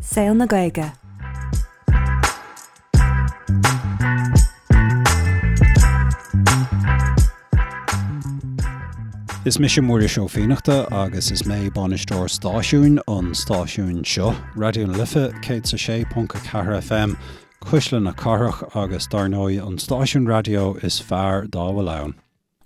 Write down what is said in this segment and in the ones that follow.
Saol na Gaeilge. Is mise Muiris Ó Fiannachta agus is mé bainisteoir stáisiúin an stáisiúin seo, Raidió na Life 106.4 FM, Cuisle na Cathrach agus dar ndóigh an stáisiún raidió is fearr dá bhfuil ann.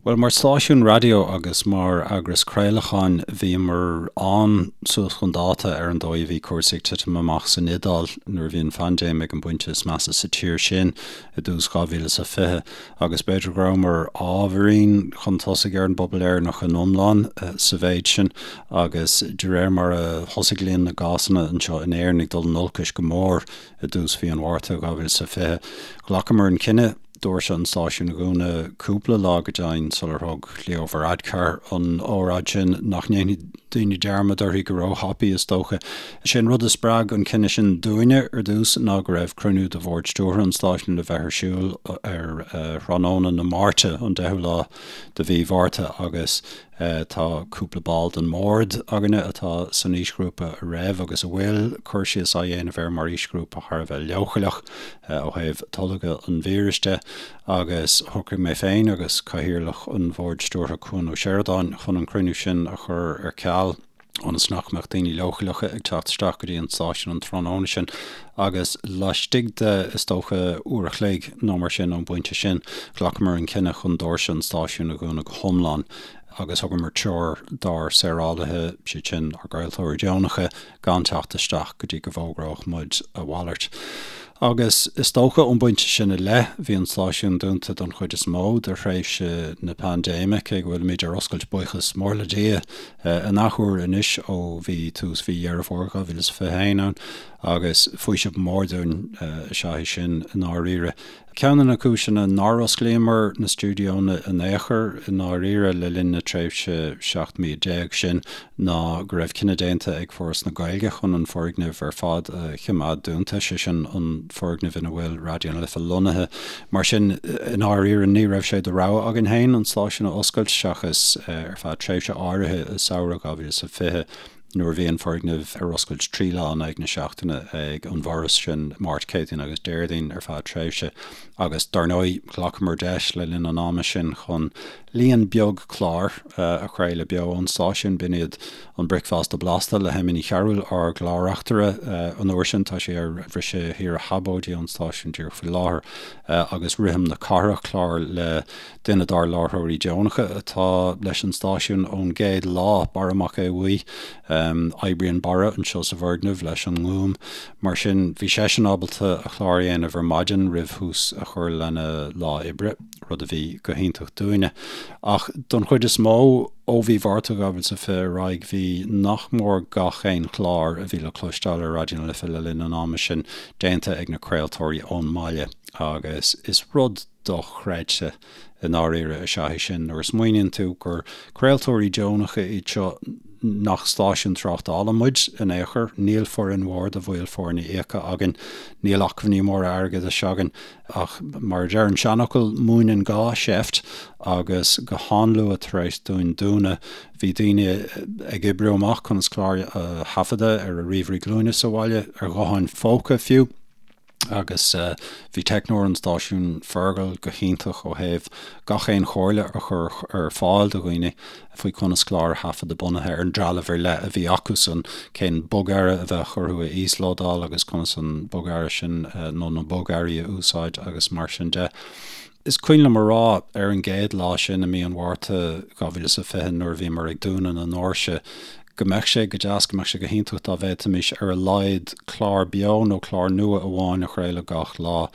Bhuel, mar stáisiún raidió agus mar eagras craolacháin, bhíomar an-suas chun dáta ar an dóigh a bhí cúrsaí ag titim amach san Iodáil nuair a bhí an phaindéim ag an bpointe is measa sa tír sin i dtús 2020 agus b'fhéidir go rabhamar ábhairín chun tosaigh ar an bpobal Éireannach in iomlán sa mhéid sin agus de réir mar a thosaigh líon na gcásanna anseo in Éirinn ag dul in olcais go mór i dtús mhí an Mhárta 2020, ghlacamar an cinneadh doirse an stáisiúin a dhúnadh cúpla lá go deimhin sular thug Leo Varadkar an óráid sin, nach ndéanfaidh daoine dearmad uirthi go róthapaidh, is dócha. Is é an rud a spreag an cinneadh sin dúinne ar dtús ná go raibh cruinniú de bhord stiúrtha an stáisiúin le bheith ar siúl ar thráthnóna na Máirte, an 10ú lá de mhí Mhárta, agus Tá cúpla ball den mbord againne atá san aoisghrúpa a raibh agus a bhfuil cur síos á dhéanamh air mar aoisghrúpa thar a bheith leochaileach ó thaobh tolgadh an víris de agus shocraigh mé féin agus Cathaoirleach an Bhoird Stiúrtha Cuan Ó Seireadáin chun an cruinniú sin a chur ar ceal. ionas nach mbeadh daoine leochaileacha ag teacht isteach go dtí an stáisiún an tráthnóna sin agus laistigh de, is dócha, uair a chloig nó mar sin ón bpointe sin, ghlacamar an cinneadh chun doirse an stáisiúin a dhúnadh go hiomlán agus thugamar treoir dár saorálaithe, siad sin ár gcraoltóirí deonacha, gan teacht isteach go dtí go bhfógródh muid a mhalairt. Agus is dócha ón bpointe sin i leith, bhí an stáisiún dúnta don chuid is mó de thréimhse na paindéime, cé go bhfuilimid ar oscailt, buíochas mór le Dia, an athuair anois ó bhí tús mhí Dheireadh Fómhair 2021 ann, agus faoiseamh mór dúinn is ea é sin i ndáiríre. Ceann de na cúiseanna nár osclaíomar na stiúideonna in aon chor i ndáiríre le linn na tréimhse 17 mí sin ná go raibh cinneadh déanta ag Foras na Gaeilge chun an foirgneamh ar fad a choimeád dúnta, sé sin an foirgneamh ina bhfuil Raidió na Life lonnaithe. Mar sin, i ndáiríre ní raibh sé de rogha againn féin an stáisiún a oscailt seachas ar feadh tréimhse áirithe i samhradh 2020. nuair a bhí an foirgneamh ar oscailt 3 lá in aghaidh na seachtaine ag an bhForas, sin Máirt, Céadaoin agus Déardaoin ar feadh tréimhse. Agus dar ndóigh, ghlacamar deis le linn an ama sin chun líon beag clár a chraoladh beo ón stáisiún. B'in iad an Bricfeasta Blasta le hEmma Ní Chearúil, ár gclár-reachtaire an uair sin, tá sí ar bhriseadh shaoire shabóidí ón stáisiún díreach faoi láthair, agus Rithim na Cathrach, clár le Duine dár láithreoirí deonacha atá leis an stáisiún ón gcéad lá, Barra Mac Aodha Bhuí. Oibríonn Barra anseo sa bhfoirgneamh leis an nGúm. Mar sin, bhí seisean ábalta a chlár a dhéanamh ar maidin roimh thús a chur lena lá oibre, rud a bhí go hiontach dúinne. Ach don chuid is mó, ó mhí Mhárta 2020 ar aghaidh, bhí nach mór gach aon chlár a bhí le cloisteáil ar Raidió na Life le linn an ama sin déanta ag na craoltóirí ón mbaile agus is rud dochreidte i ndáiríre is ea é sin nuair a smaoiníonn tú gur craoltóirí deonacha iad seo nach stáisiún tráchtála muid in aon chor, níl foireann mhór de bhaill foirne íoctha againn, níl acmhainní móra airgeadais againn ach mar a deir an seanfhocal, múineann gá seift agus go han-luath tar éis dúinn dúnadh bhí daoine ag oibriú amach conas cláir a thaifeadadh ar a ríomhairí glúine sa bhaile, ar ghutháin phóca fiú. Agus bhí teicneoir an stáisiúin, Fergal, go hiontach ó thaobh gach aon chomhairle a chur ar fáil do dhaoine faoi conas clár a thaifeadadh bunaithe ar an dtrealamh ar leith a bhí acusan, cén bogearra a bheadh orthu a íoslódáil agus conas an bogearra sin nó na bogearraí a úsáid agus mar sin de. Is cuimhin liom a rá ar an gcéad lá sin i mí an Mhárta 2020 nuair a bhíomar ag dúnadh na ndoirse go mbeadh sé go deas, go mbeadh sé go hiontach dá bhféadfaimis ar a laghad clár beo nó clár nua amháin a chraoladh gach lá.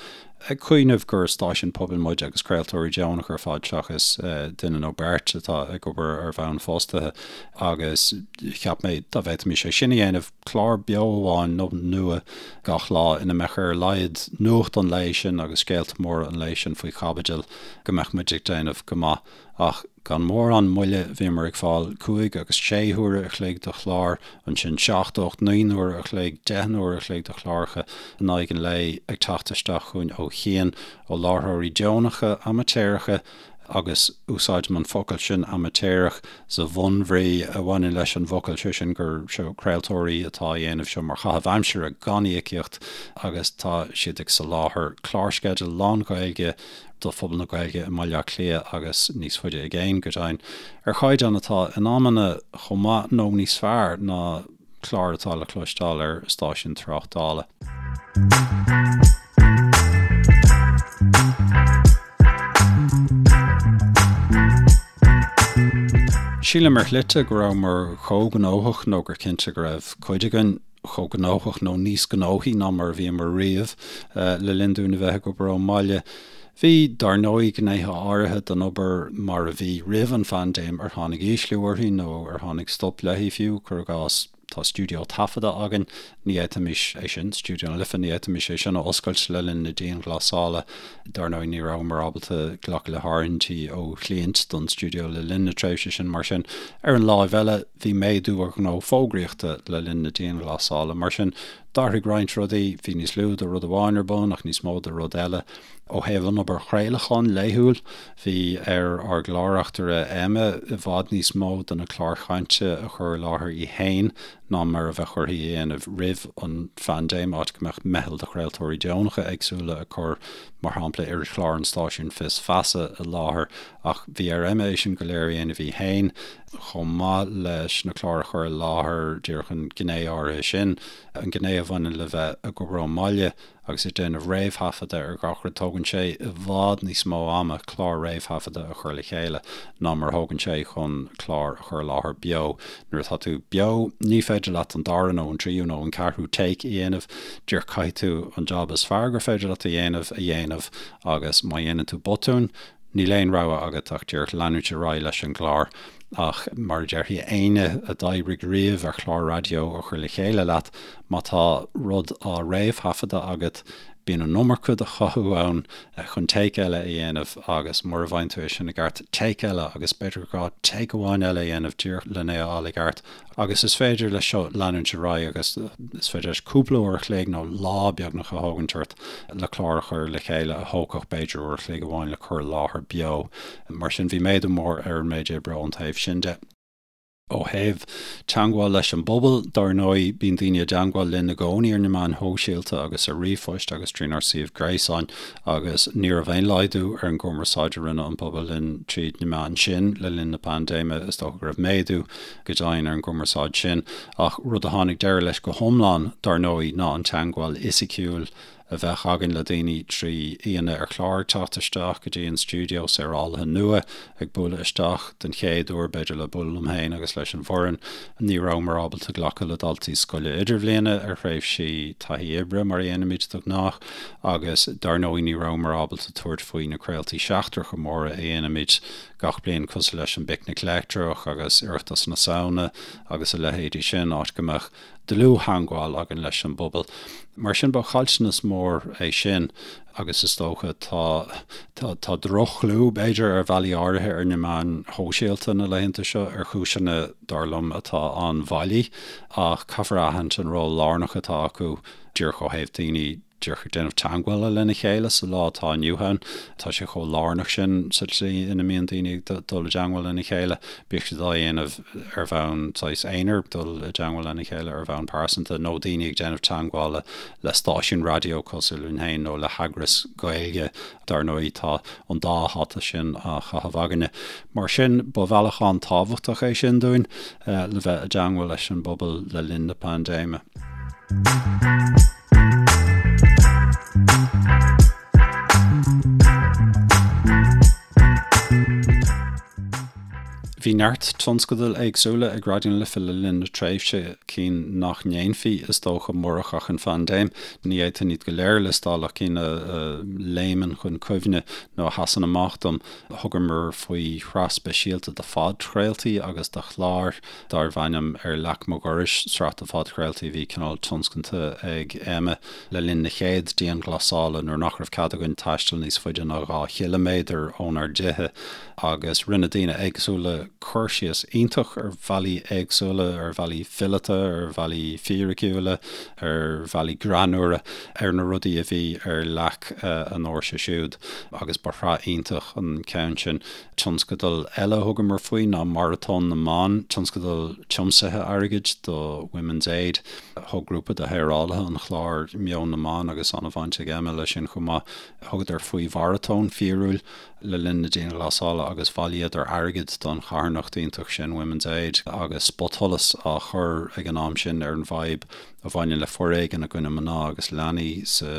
Ag cuimhneamh gur stáisiún pobail muid agus craoltóirí deonacha ar fad seachas duine nó beirt atá ag obair ar bhonn fostaithe agus cheap mé dá bhféadfaimis é sin a dhéanamh, clár beo amháin nó nua gach lá ina mbeadh ar a laghad nuacht an lae sin agus scéalta móra an lae sin faoi chaibidil, go mbeadh muid ag déanamh go maith. Ach gan mórán moille bhíomar ag fáil cúig agus sé huaire a chloig de chláir, ansin seacht, ocht, naoi n-uaire a chloig, deich n-uaire a chloig de chláracha in aghaidh an lae ag teacht isteach chugainn ó chian, ó láithreoirí deonacha, amaitéaracha. Agus úsáidim an focal sin amaitéarach sa bhunbhrí a bhaineann leis an bhfocal, sé sin gur seo craoltóirí atá á dhéanamh seo mar chaitheamh aimsire gan íocaíocht agus tá siad ag soláthar clársceideal lán-Ghaeilge do phobal na Gaeilge i mBaile Átha Cliath agus níos faide i gcéin, go deimhin, ar chaighdeán atá in amanna chomh maith nó níos fearr ná cláir atá le cloisteáil ar stáisiún tráchtála. Sílim ar shlite go rabhamar chomh gnóthach nó gur cinnte go raibh cuid againn chomh gnóthach nó níos gnóthaí ná mar a bhíomar riamh le linn dúinn a bheith ag obair ón mbaile. Bhí, dar ndóigh, gnéithe áirithe den obair mar a bhí roimh an phaindéim ar tháinig ísliú uirthi nó ar tháinig stop léi fiú, cuir i gcás, tá stiúideo taifeadta againn, ní fhéadfaimis é sin, Stiúideo na Life, ní fhéadfaimis é sin a oscailt le linn na dianghlasála. Dar ndóigh, ní rabhamar ábalta glacadh le háirithintí ó chliaint don stiúideo le linn na tréimhse sin, mar sin, ar an láimh eile, bhí méadú ar ghnó fógraíochta le linn na dianghlasála. Mar sin, d'athraigh roinnt rudaí, bhí níos lú de rud amháin ar bun ach níos mó de rud eile. Ó thaobh an obair chraolacháin laethúil, bhí ar ár gclár-reachtaire Emma i bhfad níos mó de na cláir chainte a chur i láthair í féin ná mar a bheadh uirthi a dhéanamh roimh an phaindéim, áit go mbeadh meitheal de chraoltóirí deonacha éagsúla ag cur, mar shampla, irischlár an stáisiúin Fios Feasa i láthair. Ach bhí ar Emma é sin go léir a dhéanamh í féin, chomh maith leis na cláir a chur i láthair, díreach an ghné áirithe sin, an ghné a bhaineann le bheith ag obair ón mbaile. Agus ag déanamh réamhthaifeadta ar gach rud, tógann sé i bhfad níos mó ama clár réamhthaifeadta a chur le chéile ná mar a thógann sé chun clár a chur i láthair beo. Nuair atá tú beo, ní féidir leat an dara nó an tríú nó an ceathrú take a dhéanamh, díreach caithfidh tú an jab is fearr gur féidir leat a dhéanamh a dhéanamh agus má dhéanann tú botún, Níl aon rogha agat ach díreach leanúint ar aghaidh leis an gclár. Ach mar a déarfaidh éinne a d'oibrigh riamh ar chlár raidió a chur le chéile leat, má tá rud á réamhthaifeadadh agat, bíonn an iomarca de chothú ann chun take eile a dhéanamh agus mura bhfaigheann tú é sin i gceart, take eile agus b'fhéidir gur gá take amháin eile a dhéanamh díreach len é a fháil i gceart. Agus is féidir leis seo leanúint ar aghaidh agus is féidir leis cúpla uair a chloig nó lá beagnach a thógaint ort le clár a chur le chéile a thógfadh b'fhéidir uair a chloig amháin le cur i láthair beo. Mar sin bhí méadú mór ar an méid oibre ón taobh sin de. Ó thaobh teagmháil leis an bpobal, dar ndóigh, bíonn daoine i dteagmháil linn i gcónaí ar na meáin shóisialta agus ar ríomhphoist agus trínár suíomh gréasáin agus ní raibh aon laghdú ar an gcumarsáid a rinne an pobal linn tríd na meáin sin le linn na paindéime. Is dócha go raibh méadú go deimhin ar an gcumarsáid sin, ach rud a tháinig deireadh leis go hiomlán, dar ndóigh, ná an teagmháil fhisiciúil a bheadh againn le daoine trí aíonna ar chlár ag teacht isteach go dtí an stiúideo saorálaithe nua, ag bualadh isteach den chéad uair, b'fhéidir, le bualadh liom féin agus leis an bhfoireann. Ní rabhamar ábalta glacadh le daltaí scoile idirbhliana ar thréimhsí taithí oibre, mar a dhéanaimid de ghnáth, agus dar ndóigh ní rabhamar ábalta tabhairt faoi na craoltaí seachtracha móra a dhéanaimid gach bliain cosúil leis an bPicnic Leictreach agus Oireachtas na Samhna agus a leithéidí sin, áit go mbeadh dlúth-theangmháil againn leis an bpobal. Mar sin ba chaillteanas mór é sin agus is dócha tá tá tá droch-chlú b'fhéidir ar bhealaí áirithe ar na meáin shóisialta na laethanta seo ar chúiseanna dar liom atá an-bhailí ach caithfear a aithint an ról lárnach atá acu díreach ó thaobh daoine díreach ag déanamh teagmhála lena chéile sa lá atá inniu ann. Tá sé chomh lárnach sin sa tslí ina mbíonn daoine ag dul i dteagmháil lena chéile, bíodh siad á dhéanamh ar bhonn saghas aonair, dul i dteagmháil lena chéile ar bhonn pearsanta, nó daoine ag déanamh teagmhála le stáisiún raidió cosúil linn féin nó le heagras Gaeilge. Dar ndóigh, tá an dá hata sin á chaitheamh againne. Mar sin, ba bhealach an-tábhachtach é sin dúinn le bheith i dteagmháil leis an bpobal le linn na paindéime. Bhí neart tionscadail éagsúla ag Raidió na Life le linn na tréimhse, cinn nach ndéanfaí, is dócha, murach ach an phaindéim. Ní fhéadfainn iad go léir a liostáil ach cinn a léimeann chun cuimhne nó a sheasann amach dom. Thugamar faoi shraith speisialta de phodchraoltaí agus de chláir darbh ainm Ar Leac Mo Dhorais, sraith de phodchraoltaí a bhí cineál tionscanta ag Emma le linn na chéad dianghlasála nuair nach raibh cead againn taisteal níos faide ná 2 chiliméadar ónár dtithe agus rinne daoine éagsúla. cur síos iontach ar bhealaí éagsúla, ar bhealaí fileata, ar bhealaí fíriciúla, ar bhealaí greannmhara, ar na rudaí a bhí ar leac a ndoirse siúd agus ba shraith iontach an ceann sin. Tionscadal eile a thugamar faoi ná Maratón na mBan, tionscadal tiomsaithe airgid do Women's Aid. Thug grúpa de shaorálaithe an chláir Meon na mBan agus an-bhaint ag Emma leis sin chomh maith. Thugadar faoi mharatón fíorúil le linn na dianghlasála agus bhailíodar airgead don charthanacht iontach sin Women's Aid agus spotsholas á chur ag an am sin ar an bhfadhb a bhaineann le foréigean i gcoinne mná agus leanaí sa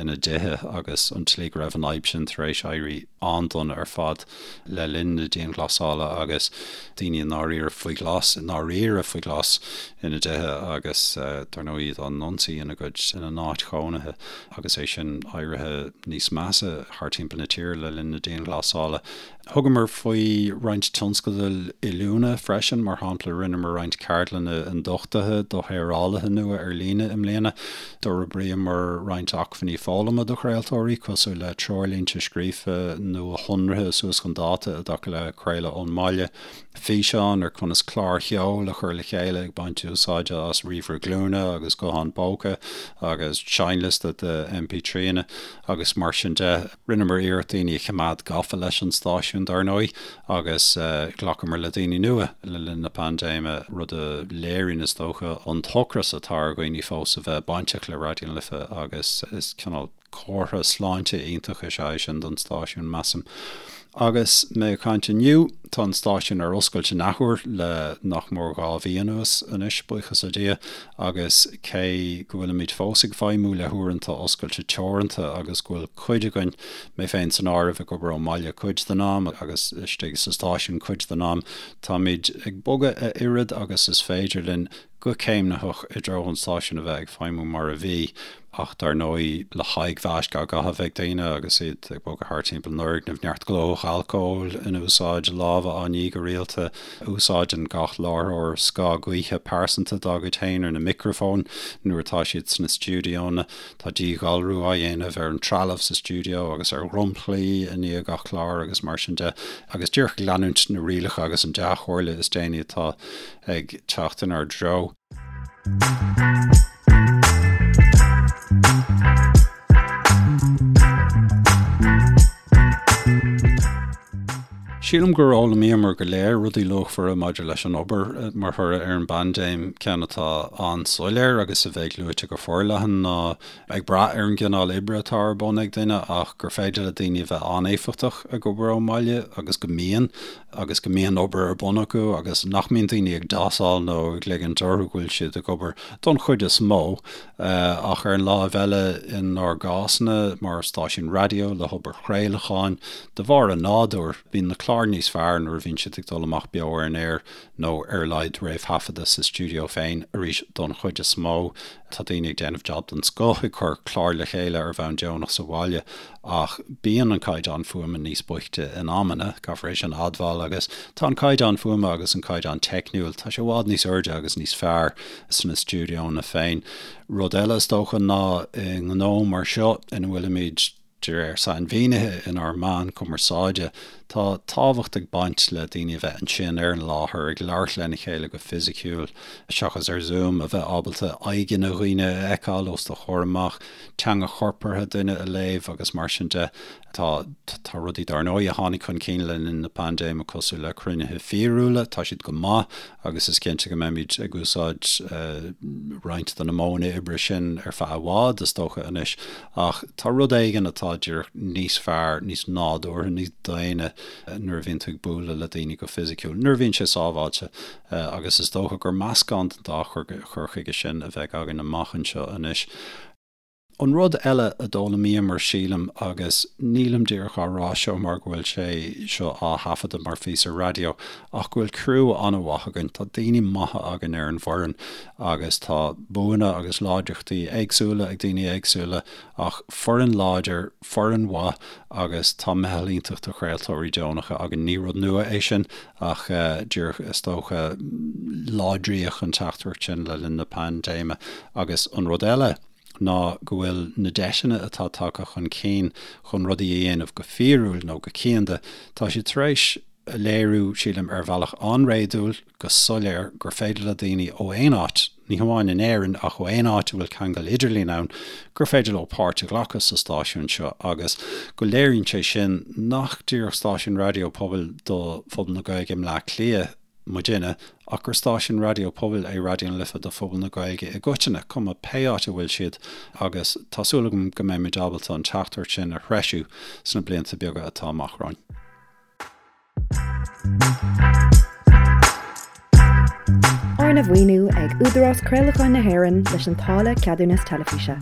ina dtithe agus an tslí go raibh an fhadhb sin tar éis éirí an-dona ar fad le linn na dianghlasála agus daoine i ndáiríre faoi ghlas, i ndáiríre faoi ghlas ina dtithe agus dar ndóigh iad á n-ionsaí ina gcuid, ina n-áit chónaithe agus é sin éirithe níos measa thar timpeall na tíre le linn na dianghlasála. Thugamar faoi roinnt tionscadail oiliúna freisin, mar shampla rinneamar roinnt ceardlanna ionduchtaithe do shaorálaithe nua ar líne i mbliana. D'fhorbraíomar roinnt acmhainní foghlama do chraoltóirí, cosúil le treoirlínte scríofa nuashonraithe suas chun dáta i dtaca le craoladh ón mbaile, físeáin ar conas cláir cheoil a chur le chéile ag baint úsáide as ríomhaire glúine agus guthán póca agus seinnliosta de MP3anna agus mar sin de. Rinneamar iarracht daoine a choimeád gafa leis an stáisiún, dar ndóigh, agus ghlacamar le daoine nua le linn na paindéime, rud a léiríonn, is dócha, an t-ocras atá ar dhaoine fós a bheith bainteach le Raidió na Life agus is cineál comhartha sláinte iontach is ea é sin don stáisiún, measaim. Agus mé ag caint inniu, tá an stáisiún ar oscailt in athuair le nach mór 2 mhí anuas anois, buíochas le Dia, agus cé go bhfuilimid fós ag feidhmiú le huaireanta oscailte teoranta agus go bhfuil cuid againn, mé féin san áireamh, ag obair ón mbaile cuid den am agus istigh sa stáisiún cuid den am, táimid ag bogadh a oiread agus is féidir linn go céimnitheach i dtreo an stáisiún a bheith ag feidhmiú mar a bhí, ach dar ndóigh le haghaidh mhaisc á gcaitheamh ag daoine agus iad ag bogadh thart timpeall an fhoirgnimh, neart glóthach alcóil in úsáid, lámha á ní go rialta, úsáideann gach láithreoir scáth gaoithe pearsanta dá gcuid féin ar na micreafóin nuair atá siad sna stiúideonna, tá díghalrú á dhéanamh ar an trealamh sa stiúideo agus ar dhromchlaí i ndiaidh gach clár agus mar sin de, agus díreach ag leanúint na rialacha agus an dea-chomhairle is déanaí atá ag teacht inár dtreo. Sílim gur fhoghlaimíomar go léir rudaí luachmhara maidir leis an obair mar thoradh ar an bpaindéim. Ceann atá an-soiléir agus a bheidh luaite go forleathan ná, ag brath ar an gcineál oibre atá ar bun ag duine, ach gur féidir le daoine a bheith an-éifeachtach ag obair ón mbaile agus go mbíonn. agus go mbíonn obair ar bun acu agus nach mbíonn daoine ag dásáil nó ag ligint orthu go bhfuil siad ag obair don chuid is mó. Ach ar an láimh eile, inár gcásanna mar stáisiún raidió le hobair chraolacháin, de bharr a nádúir, bíonn na cláir níos fearr nuair a bhíonn siad ag dul amach beo ar an aer nó ar a laghad réamhthaifeadta sa stiúideo féin, arís don chuid is mó. Tá daoine ag déanamh jab den scoth ag cur cláir le chéile ar bhonn deonach sa bhaile ach bíonn an caighdeán fuaime níos boichte in amanna, caithfear é sin a admháil, agus tá an caighdeán fuaime agus an caighdeán teicniúil, tá sé i bhfad níos airde agus níos fearr sna stiúideonna féin. Rud eile is dócha ná i ngnó mar seo ina bhfuilimid, De réir sainmhínithe inár meán cumarsáide, tá tábhacht ag baint le daoine a bheith ansin ar an láthair, ag labhairt lena chéile go fisiciúil, seachas ar Zoom, a bheith ábalta aghaidheanna dhaoine a fheiceáil os do chomhair amach, teanga chorpartha duine a léamh agus mar sin de. Tá tá rudaí dar ndóigh a tháinig chun cinn le linn na paindéime cosúil le cruinnithe fíorúla, tá siad go maith agus is cinnte go mbeimid ag úsáid roinnt de na modhanna oibre sin ar feadh i bhfad, is dócha anois. Ach tá rud éigin atá díreach níos fearr, níos nádúrtha, níos daonna nuair a bhíonn tú ag bualadh le daoine go fisiciúil, nuair a bhíonn sé sábháilte. Agus is dócha gur meascán den dá chur chuige sin a bheidh againn amach anseo anois. An rud eile a d'fhoghlaimíomar, sílim, agus nílim díreach á rá seo mar go bhfuil sé seo á thaifeadadh mar phíosa raidió, ach go bhfuil criú an-mhaith againn. Tá daoine maithe againn ar an bhfoireann agus tá buanna agus láidreachtaí éagsúla ag daoine éagsúla ach foireann láidir, foireann mhaith agus tá meitheal iontach de chraoltóirí deonacha againn. Ní rud nua é sin ach díreach, is dócha, láidríodh an teachtaireacht sin le linn na paindéime. Agus an rud eile ná go bhfuil na deiseanna atá tagtha chun cinn chun rudaí a dhéanamh go fíorúil nó go cianda, tá siad tar éis. a léiriú, sílim, ar bhealach an-réadúil, go soiléir, gur féidir le daoine ó aon áit, ní hamháin in Éirinn ach ó aon áit a bhfuil ceangal idirlín ann, gur féidir leo páirt a ghlacadh sa stáisiún seo agus go léiríonn sé sin nach díreach stáisiún raidió pobail do phobal na Gaeilge i mBleá Cliath muidinne ach gur stáisiún raidió pobail é Raidió na Life do phobal na Gaeilge i gcoitinne, cuma pé áit a bhfuil siad agus tá súil agam go mbeimid ábalta an teachtaireacht sin a threisiú sna blianta beaga atá amach romhainn. Arna mhaoiniú ag Údarás Craolacháin na hÉireann leis an táille Ceadúnas Teilifíse.